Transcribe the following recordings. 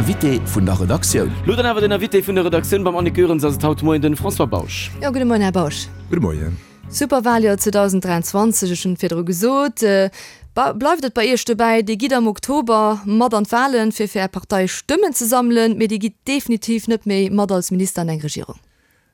Invité vun der Redaktioun. Lo dann awer den Invité vun der Redaktioun, beim Annick Goerens ass et haut Moien den François Bausch. Jo, gudde Moien Här Bausch. Gudde Moien. Superwaljoer 2023, ech hunn et virdru gesot. Bleift et bei Iech dobäi, Dir gitt am Oktober mat an d'Walen, fir fir Är Partei Stëmmen ze sammelen, mee Dir gitt definitiv net méi mat als Minister an eng Regierung?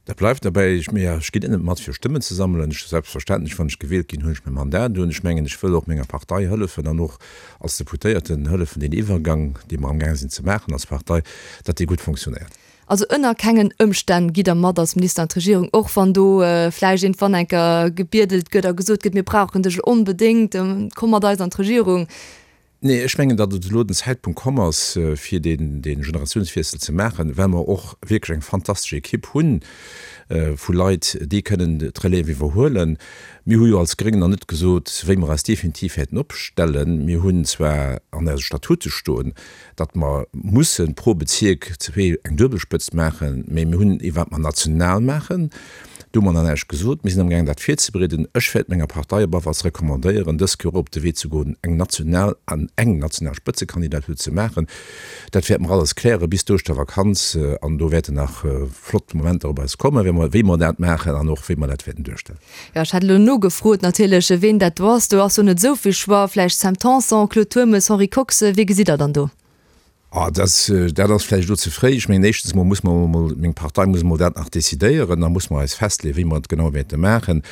Dat bleift derbäi. Ech, mee ech ginn net mat fir Stëmmen ze sammelen. Ech, selbstverständlech, wann ech gewielt ginn, hunn ech mäi Mandat un. Ech mengen, ech wëll och menger Partei hëllefen an och als Deputéierten hëllefen, deen Iwwergang, dee mer amgaang sinn ze maachen als Partei, datt dee gutt fonctionnéiert. Also ënner kengen Ëmstänn gitt Der mat als Minister an d'Regierung, och wann do vläicht iergendwann eng Kéier gebiedelt gëtt a gesot gëtt, mir brauchen dech onbedéngt, komm mat eis an d'Regierung. Nee, ech mengen, datt et elo den Zäitpunkt komm ass, fir dee Generatiounswiessel ze maachen, well mer och wierklech eng fantastesch Ekipp hu vu Leit, déi kënnen d'Relève iwwerhuelen. Mir hu jo als Gréng nach net gesot, wéi mer eis definitiv wäerten opstellen. Mir hunn zwar an eise Statute stoen, datt mer musse pro Bezierk zwee eng Duebelspëtzt maachen, mä mir hunn ee wat mer national maachen, do hu mer nach näischt gesot. Mir sinn amgaangen dat virzebereeden. Ech wäert menger Partei op alle Falls recommandéieren, dës Kéier och op de Wee ze goen, eng national an eng national Spëtzekandidatur ze maachen. Dat wäerte mer alles kläre bis d'Ouschtervakanz an do wäerten nach flott Momenter op eis kommen, wéi mer wéi mer dat maachen an och wéi mer dat wäerten duerstellen. Jo, ech hat elo nogefrot natierlech, ween dat do ass. Do ass jo net esou vill Choix. Vläicht Sam Tanson, Claude Turmes, Henri Kox, wee gesitt Der dann do? Ah, dat, dat ass vläicht elo ze fréi. Ech mengen, éischtens emol muss mer emol, meng Partei muss emol dat nach decidéieren. Da muss mer eis festleeën, wéi mer et genau wäerte maachen.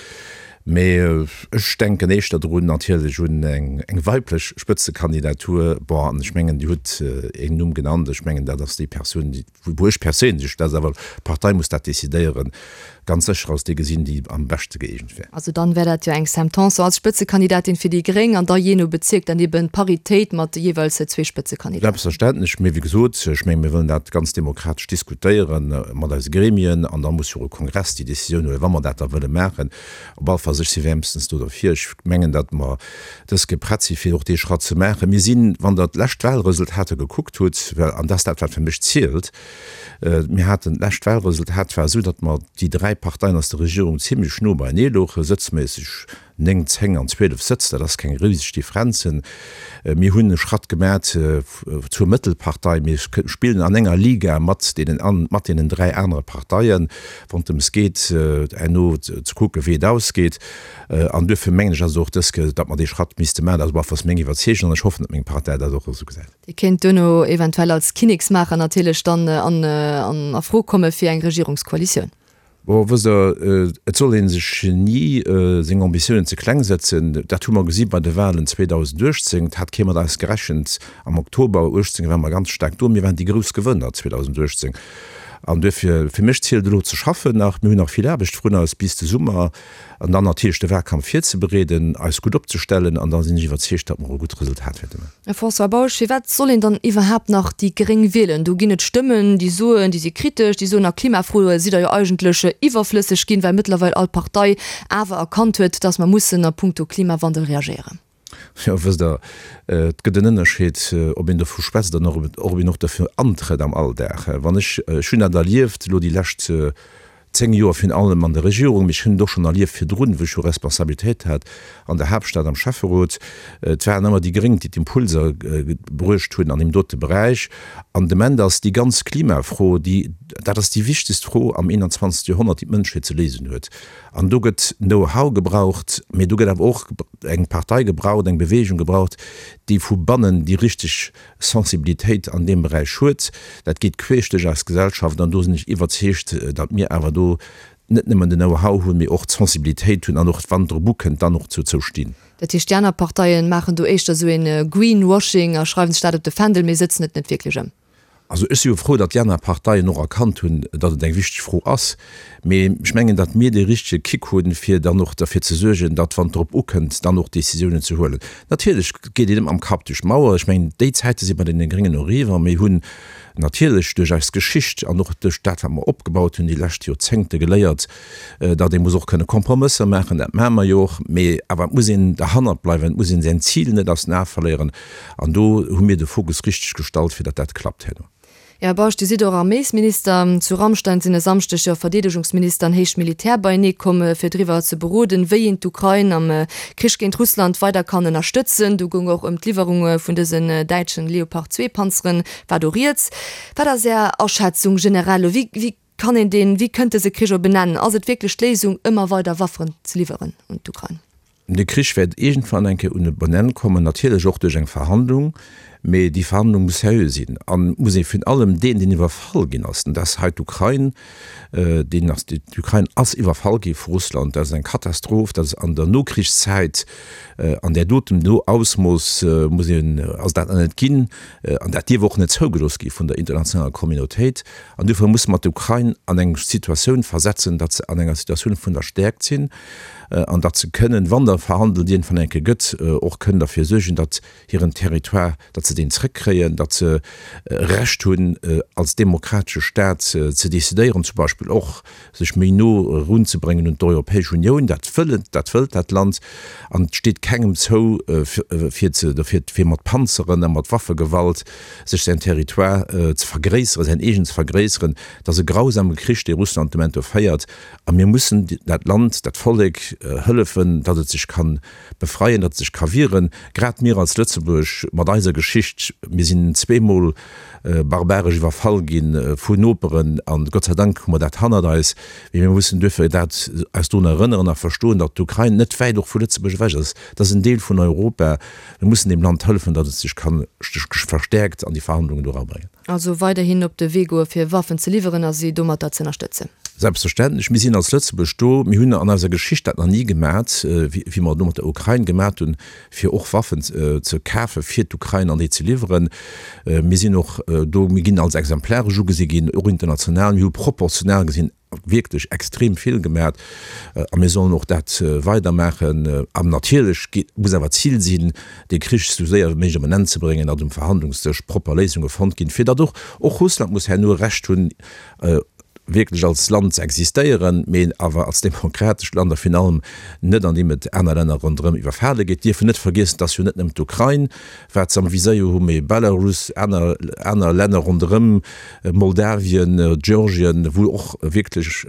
Mee ech denken éischter drun natierlech un eng, eng weiblech Spëtzekandidatur. Bon, an ech mengen, Dir hutt een Numm genannt. Ech mengen, dat ass déi Persoun, déi, Wou ech perséinlech, dat ass awer, d'Partei muss dat decidéieren, ganz sécher als déi gesinn, déi am beschte gëeegent wär. Also dann wär dat jo eng Sam Tanson als Spëtzekandidatin fir déi Gréng an da jee no Bezierk dann eben d'Paritéit mat jeeweils zwee Spëtzekandidaten. Selbstverständlech, mee wéi gesot, ech menge mir wëllen dat ganz demokratesch diskutéiere mat eise Gremien an da muss jo och e Kongress déi Décisioun huelen, wa mer dat da wëlle maachen. Op alle Falls, ech si wäermstens do derfir. Ech mengen, datt mer dës Kéier prett si fir och dee Schratt ze maachen. Mir sinn, wann Der d'lescht Wahlresultater gekuckt hutt, well, an dat ass dat wat fir mech zielt, mir haten d'lescht Wahlresultat war esou, datt mer déi dräi Parteien aus der Regierung zimlech no beienee louchen, sëtzméisseg 9, 10 an 12 Sëtz, dat ass keng riseg Differenzen. Mir hunn e Schratt gemat zur Mëttelpartei. Mir spillen an enger Liga mat deenen, mat deenen dräi anere Parteien, wann et drëms geet, herno ze kucken, wéi et ausgeet. An duerfir mengen ech, ass et och dës Kéier, datt mer dee Schratt misste maachen. Dat ass op alle Falls meng Iwwerzeegung an ech hoffen, datt meng Partei dat och esou gesäit. Dir kéint duerno eventuell als Kinneksmaacher natierlech dann an a Fro komme fir eng Regierungskoalitioun. Bon, wësst Der, et soll ee sech ni seng Ambitiounen ze kleng setzen. Dat hu mer gesi bei de Wahlen 2018. Et hat kee mat eis gerechent. Am Oktober 18 ware mer ganz staark do. Mir waren déi grouss Gewënner 2018. An duerfir, fir mech zielt elo ze schaffen nach. Mir hunn nach vill Aarbecht vrun eis bis de Summer. An dann natierlech de Wahlkampf virzebereeden, eis gutt opzestellen an da sinn ech iwwerzeegt, datt mer och e gutt Resultat wäerte maachen. Här François Bausch, firwat soll een dann iwwerhaapt nach déi Gréng wielen? Do ginn et Stëmmen, déi soen, déi si kritesch, déi soen, a Klimafroe sidd Der jo eigentlech iwwerflësseg ginn, well mëttlerweil all Partei awer erkannt huet, datt mer mussen a puncto Klimawandel reagéieren. Jo, wësst Der, et gëtt en Ënnerscheed, ob een dovu schwätzt an och ob een och derfir antrëtt am Alldag. Wann ech, ech hunn dat erlieft elo déi lescht 10 Joer virun allem an der Regierung, mee ech hunn et och schonn erlieft virdrun, wou ech jo Responsabilitéit hat an der Haaptstad am Schäfferot, et waren ëmmer déi Gréng, déi d'Impulser bruecht hunn an deem dote Beräich. An de Moment ass déi ganz Klimafro, déi, dat ass déi wichtegst Fro am 21. Joerhonnert, déi d'Mënschheet ze léisen huet. An do gëtt Know-how gebraucht, mee do gëtt awer och eng Partei gebraucht, eng Bewegung gebraucht, déi vu bannen déi richteg Sensibilitéit an deem Beräich huet. Dat geet queesch duerch eis Gesellschaft an do sinn ech iwwerzeegt, datt mir awer do net nëmmen den Know-how hunn, mee och d'Sensibilitéit hunn an och, wann et drop ukënnt, dann och dozou stinn. Dat heescht, déi aner Parteien maachen do éischter esou ee Greenwashing a schreiwen sech dat op de Fändel, mee sëtzen et net wierklech ëm. Also ech si jo frou, datt déi aner Parteien och erkannt hunn, datt et eng wichteg Fro ass. Mee ech mengen, datt mir dee richtege Kick hunn, fir dann och derfir ze suergen, datt, wann et drop ukënnt, dann och Décisiounen ze huelen. Natierlech geet een net mam Kapp duerch d'Mauer. Ech mengen, déi Zäite si bei deene Gréngen eriwwer. Mir hunn natierlech duerch eis Geschicht an och duerch dat, wat mer opgebaut hunn déi lescht Joerzéngte geléiert, datt ee muss och kënne Kompromësser maachen. Dat maache mer jo och. Mee awer et muss een derhannert bleiwen, et muss een säin Zil net aus den Ae verléieren. An do hu mir de Fokus richteg gestallt, fir datt dat klappt herno. Här Bausch, Dir sidd och Arméisminister. Zu Ramstein sinn e Samschdeg jo Verdeedegungsminister an héich Militär beienee komm, fir driwwer ze beroden, wéi een d'Ukrain am Krich géint Russland weider kann ënnerstëtzen. Do goung och ëm d'Liwwerung vun dësen däitschen Leopard 2 Panzeren, war do rieds. Wat ass Är Aschätzung generell elo? Wéi kann een deen, wéi kënnt dëse Krich op en Enn? Ass et wierklech d'Léisung, ëmmer weider Wafferen ze liwweren un d'Ukrain? De Krich wäert iergendwann eng Kéier un e bon Enn kommen, natierlech och duerch eng Verhandlung, mee déi Verhandlung muss seriö sinn a muss ee virun allem deen, deen iwwerfall ginn ass, an dat ass hei d'Ukrain, deen ass, d'Ukrain ass iwwerfall gi vu Russland, dat ass eng Katastroph, dat ass an der Nokrichszäit an där dotem do Ausmooss muss een, ass dat nach net ginn an dat dierf och net zougelooss gi vun der internationaler Communautéit. An dofir musse mer d'Ukrain an eng Situatioun versetzen, datt se an enger Situatioun vun der Stäerkt sinn, an datt se kënnen, wann da verhandelt iergendwann eng Kéier gëtt, och kënnen derfir suergen, datt hiren Territoire, datt se deen zrëckkréien, datt se e Recht hunn, als demokratesche Stat ze decidéieren, zum Beispill och sech méi no erunzebréngen un d'Europäesch Unioun. Dat wëllen, dat wëllt dat Land an et steet kengem zou, fir ze, dofir, fir mat Panzeren a mat Waffegewalt sech säin Territoire ze vergréisseren, säin eegen ze vergréisseren. Et ass e grausame Krich, dee Russland de Moment do féiert. A mir mussen dat Land, dat Vollek hëllefen, datt et sech ka befreien, datt et sech ka wieren. Grad mir als Lëtzebuerg mat eiser Geschicht, mir sinn zweemol barbaresch iwwerfall gi vun Noperen an Gott sei Dank hu mer dat hannert eis. Mee mir mussen duerfir dat eis drun erënneren a verstoen, datt d'Ukrain net wäit och vu Lëtzebuerg ewech ass. Dat ass en Deel vun Europa. Mir mussen deem Land hëllefen, datt et sech ka verstäerkt an déi Verhandlungen do erabréngen. Also weiderhin op de Wee goe fir Waffen ze liwweren a si domatter z'ënnerstëtzen. Selbstverständlech, mir sinn als Lëtzebuerg do. Mir hunn an eiser Geschicht dat nach ni gemat, wéi mer et elo mat der Ukrain gemat hunn, fir och Waffen ze kafe fir d'Ukrain an déi ze liwweren. Mir sinn och do, mir ginn als exemplaresch ugesi ginn, och international. Mir hu proportional gesinn wierklech extrem vill gemat a mir sollen och dat weidermaachen. An natierlech muss awer d'Zil sinn, dee Krich esou séier wéi méiglech op en Enn ze bréngen, datt um Verhandlungsdësch propper Léisunge fonnt ginn, fir datt och och Russland muss herno Recht hunn, wierklech als Land ze existéieren, mee awer als demokratescht Land a virun allem net andeem et aner Länner ronderëm iwwerfale gétt. Dierfen net vergiessen, et ass jo net nëmmen d'Ukrain, wat se am Viséier hu, mee Belarus, aner, aner Länner ronderëm, Moldawien, Georgien, wou och wierklech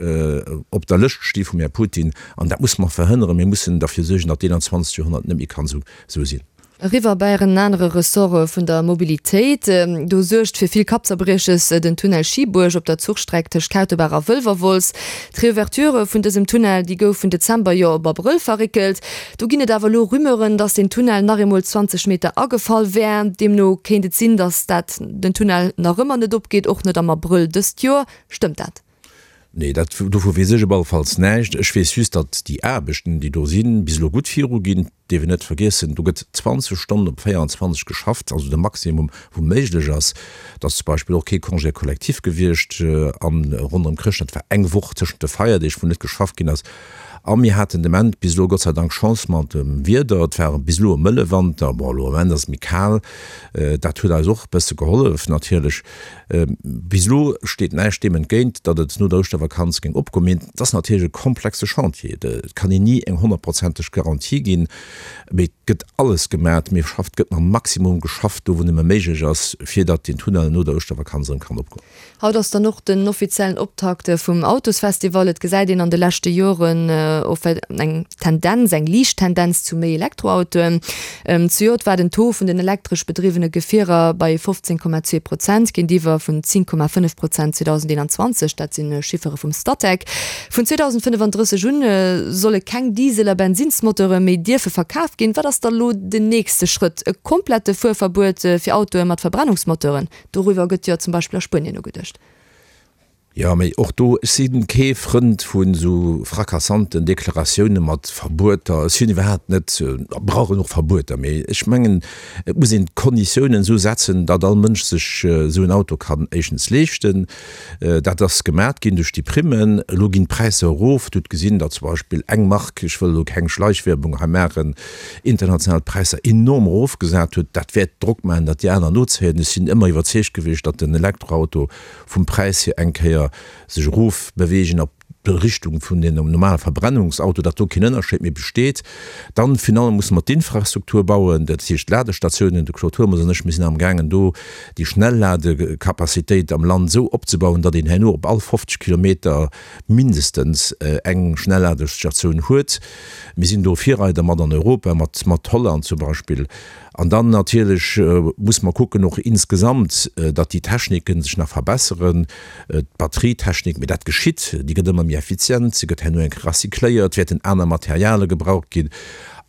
op der Lëscht sti vum Här Putin. An dat musse mer verhënneren. Mir mussen derfir suergen, datt d'Eenanzwanzegt Joerhonnert net méi kann esou, esou sinn. Eriwwer bei en anere Ressort vun der Mobilitéit. Do suergt fir vill Kappzerbrieches den Tunnel Schiebuerg op der Zuchstreck tëscht Kautebaach a Wëlwerwolz. D'Reouverture vun dësem Tunnel, déi gouf vun Dezember jo op Abrëll verréckelt. Do ginn et awer elo Rumeuren, dass den Tunnel nach eemol 20 Meter agefall wär. Deemno kéint et sinn, dass dat den Tunnel nach ëmmer net opgeet, och net am Abrëll dëst Joer. Stëmmt dat? Nee, dat, dovu weess ech op alle Falls näischt. Ech weess just, datt déi Aarbechten, déi do sinn, bis elo gutt viruginn. Dierf een net vergiessen, do gëtt 20 Stonnen op 24 geschafft, also de Maximum, wou méiglech ass. Et ass zum Beispill och kee Congé collectif gewiescht an ronderëm Chrëschtdag. Et war eng Woch tëschent de Feierdeeg, wou net geschafft ginn ass. A mir haten de Ament bis elo Gott sei Dank Chance mat dem Wieder. Et war bis elo e mëlle Wanter. Bon, elo am Ament ass et méi kal. Dat huet eis och e bësse gehollef natierlech. Bis elo steet näischt deem entgéint, datt et no der Ouschtervakanz géing opgoen. Mee et ass natierlech e komplexe Chantier. Et kann een ni eng honnertprozenteg Garantie ginn. Mee et gëtt alles gemat. Mir schafft, gëtt mam Maximum geschafft, do wou nëmme méiglech ass, fir datt deen Tunnel no der Ouschtervakanz erëm kann opgoen. Haut ass dann och den offiziellen Optakt vum Autosfestival. Et gesäit een an de leschte Joren eng Tendenz, eng liicht Tendenz zu méi Elektroautoen. Zejoert war den Taux vun den elektresch bedriwwene Gefierer bei 15,2 Prozent, géintiwwer vun 10,5 Prozent 2021. Dat si Chiffere vum Statec. Vun 2035 un solle keng Diesel a Bensinnsmoteure méi dierfe verkaf ginn. Wat ass da lo den nächste Schrëtt? E komplette Fuerverbuet fir Autoe mat Verbrennungsmoteuren? Doriwwer gëtt jo zum Beispill a Spuenien nogeduecht. Jo, mee och do, ech si kee Frënd vun esou fracassanten Deklaratioune mat Verbueter. Ech sinn iwwerhaapt net, brauch een och Verbueter, mee ech mengen, et muss een d'Konditiounen esou setzen, datt all Mënsch sech esou en Auto kann éischtens leeschten. Dat ass gemat ginn duerch déi Primmen. Elo ginn d'Präisser erof. Dir hutt gesinn, datt zum Beispill eng Mark, ech wëll elo keng Schleichwerbung hei maachen, international d'Präisser enorm erofgesat huet, dat wäert Drock maachen, datt déi aner nozéien. Ech sinn ëmmer iwwerzeegt gewiescht, datt den Elektroauto vum Präis hier eng Kéier sech erofbeweegen op. Richtung vun den normale Verbrennungsauto, datt do keen Ënnerscheed méi besteet. Dann finalement musse mer d'Infrastruktur bauen, dat heescht d'Ladestatiounen. De Claude Turmes an ech, mir sinn amgaangen do déi Schnellladecapacitéit am Land esou opzebauen, datt een herno op all 50 Kilometer mindestens eng Schnellladestatioun huet. Mir sinn do Virreider mat an Europa, mat mat Holland zum Beispill. An dann natierlech muss mer kucken och insgesamt, datt déi Techniken sech nach verbesseren, d'Batterietechnik, mee dat geschitt, déi gëtt ëmmer méi effizient, se gëtt herno eng Kéier recycléiert, wäerten aner Materiale gebraucht ginn.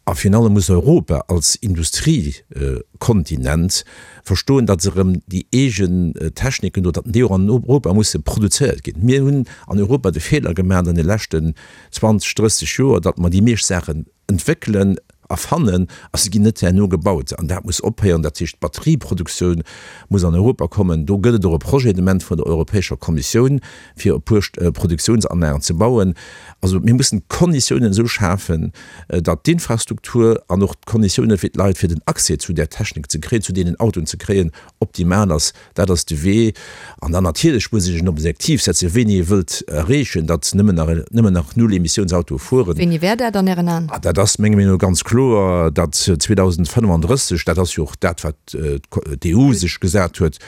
A virun allem muss Europa als Industriekontinent verstoen, datt se erëm déi eegen Techniken do, datt déi och an Europa musse produzéiert ginn. Mir hunn an Europa de Feeler gemaach an de leschten 20, 30 Joer, datt mer déi meescht Saachen entwéckelen, erfannen a se ginn net herno gebaut. An dat muss ophéieren. Dat heescht, d'Batterieproduktioun muss an Europa kommen. Do gëtt et och e Projet de Moment vun der Europäescher Kommissioun, fir e puer Produktiounsanlagen ze bauen. Also mir mussen d'Konditiounen esou schafen, datt d'Infrastruktur an och d'Konditiounen fir d'Leit, fir den Accès zu där Technik ze kréien, zu deenen Autoen ze kréien, optimal ass. Dat ass de Wee. An dann natierlech muss ee sech en Objektiv setzen, wéini ee wëllt erreechen, datt nëmmen nach, nëmmen nach Null-Emissiounsautoe fueren. Wéini wär dat an Ären Aen? Dat ass menger Meenung no ganz kloer, datt 2035, dat ass jo och dat, wat d'EU sech gesat huet,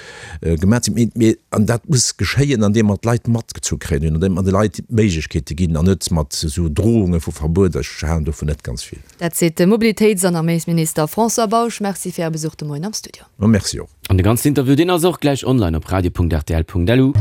gemaach sinn. Mee, an dat muss geschéien, andeem mer d'Leit matgezu kréien hunn, andeem mer de Leit Méiglechkeete ginn an net mat esou Drohunge vu Verbuet. Ech halen dovun net ganz vill. Dat seet de Mobilitéits an Arméisminister François Bausch. Merci fir Äre Besuch de Moien am Studio. Merci och. An de ganzen Interview, deen ass och gläich online op radio.rtl.lu.